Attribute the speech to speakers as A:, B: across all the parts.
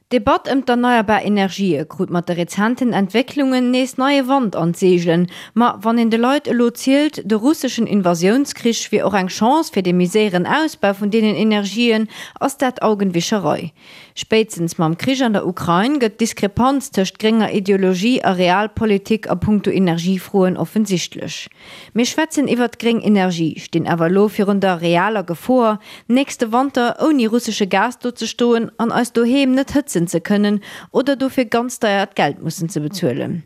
A: D'Debatt ëm d'erneierbar Energië krut mat de rezenten Entwécklungen nees neie Wand an d'Seegelen. Ma wann een de Leit elo zielt, de russeschen Invasiounskrich wier och eng Chance fir de méi séieren Ausbau vun deenen Energien, ass dat Augenwischerei. Spéitstens mam Krich an der Ukrain gëtt d'Diskrepanz tëscht grénger Ideologie a Realpolitik a punkto Energiefroen offensichtlech. Mir schwätzen iwwert gréng Energie, stinn awer elo virun der realer Gefoer, nächste Wanter ouni russesche Gas do ze stoen an eis doheem net hëtzen ze kënnen oder dofir ganz deiert Geld mussen ze bezuelen.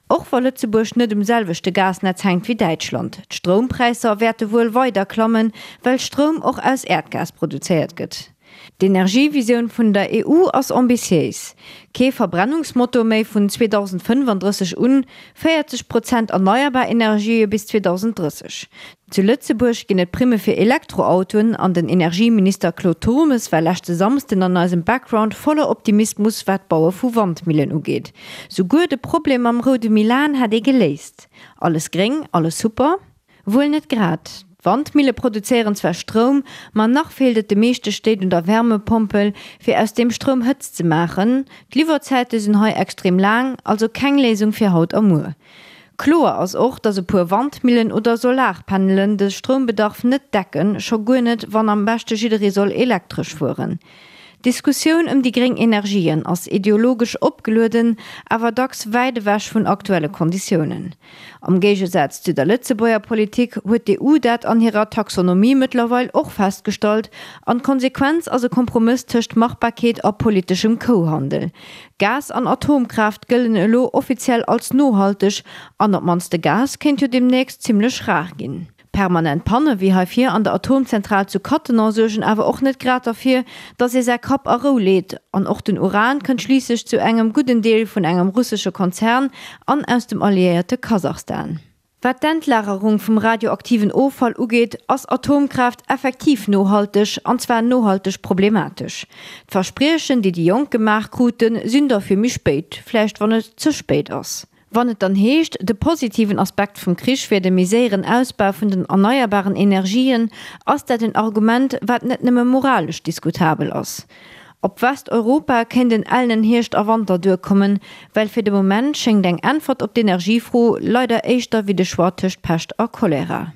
A: Och wa Lëtzebuerg net um selwechte Gasnetz hänkt wéi Däitschland, d'Stroumpräisser wäerte wuel weider klammen, well Stroum och aus Äerdgas produzéiert gëtt. D'Energievisioun vun der EU ass ambitiéis, Kee Verbrennungsmotor méi vun 2035 un, 40 Prozent erneierbar Energië bis 2030. Zu Lëtzebuerg ginn et Primme fir Elektroautoen an den Energieminister Claude Turmes war leschte Samsden an eisem Background voller Optimismus wat d'Baue vu Wandmillen ugeet. Souguer de Problem mam roude Milan hätt ee geléist. Alles gréng, alles super? Wuel net grad. D'Wandmille produzéieren zwar Stroum, ma nach feelt et de meeschte Stéit un der Wärmepompel, fir aus deem Stroum Hëtzt ze maachen. D'Liwwerzäite sinn hei extrem laang, also keng Léisung fir haut a muer. Kloer ass och, datt e puer Wandmillen oder Solarpanelen de Stroumbedarf net decken, scho guer net, wann am beschte jidderee soll elektresch fueren. D'Diskussioun ëm déi gréng Energien ass ideologesch opgelueden, awer dacks wäit ewech vun aktuelle Konditiounen. Am Géigesaz zu der Lëtzebuerger Politik huet d'EU dat an hirer Taxonomie mëttlerweil och festgestallt an d'Konsequenz ass e Kompromëss tëscht Machbarkeet a politeschem Kouhandel. Gas an Atomkraaft gëllen elo offiziell als nohalteg an op d'mannst de Gas kéint jo deemnächst zimmlech rar ginn. Permanent Panne wéi hei vir an der Atomzentral zu Cattenom suergen awer och net grad derfir, datt ee säi Kapp a Rou leet. An och den Uran kënnt schliisslech zu engem gudden Deel vun engem russesche Konzern an aus dem alliéierte Kasachstan. Wat d'Endlagerung vum radioaktiven Offall ugeet, ass Atomkraaft effektiv nohalteg, an zwar nohalteg problematesch. D'Verspriechen, déi déi Jonk gemaach kruten, sinn der fir méi spéit, vläicht wann et ze spéit ass. Wann et dann heescht, de positiven Aspekt vum Krich wier de méi séieren Ausbau vun den erneierbaren Energien, ass dat en Argument, wat net nëmme moralesch diskutabel ass. Op Westeuropa kéint en ellenen Hierscht a Wanter duerkommen, well fir de Moment schéngt eng Äntwert op d'Energiefro leider éischter wéi de Choix tëscht Pescht a Cholera.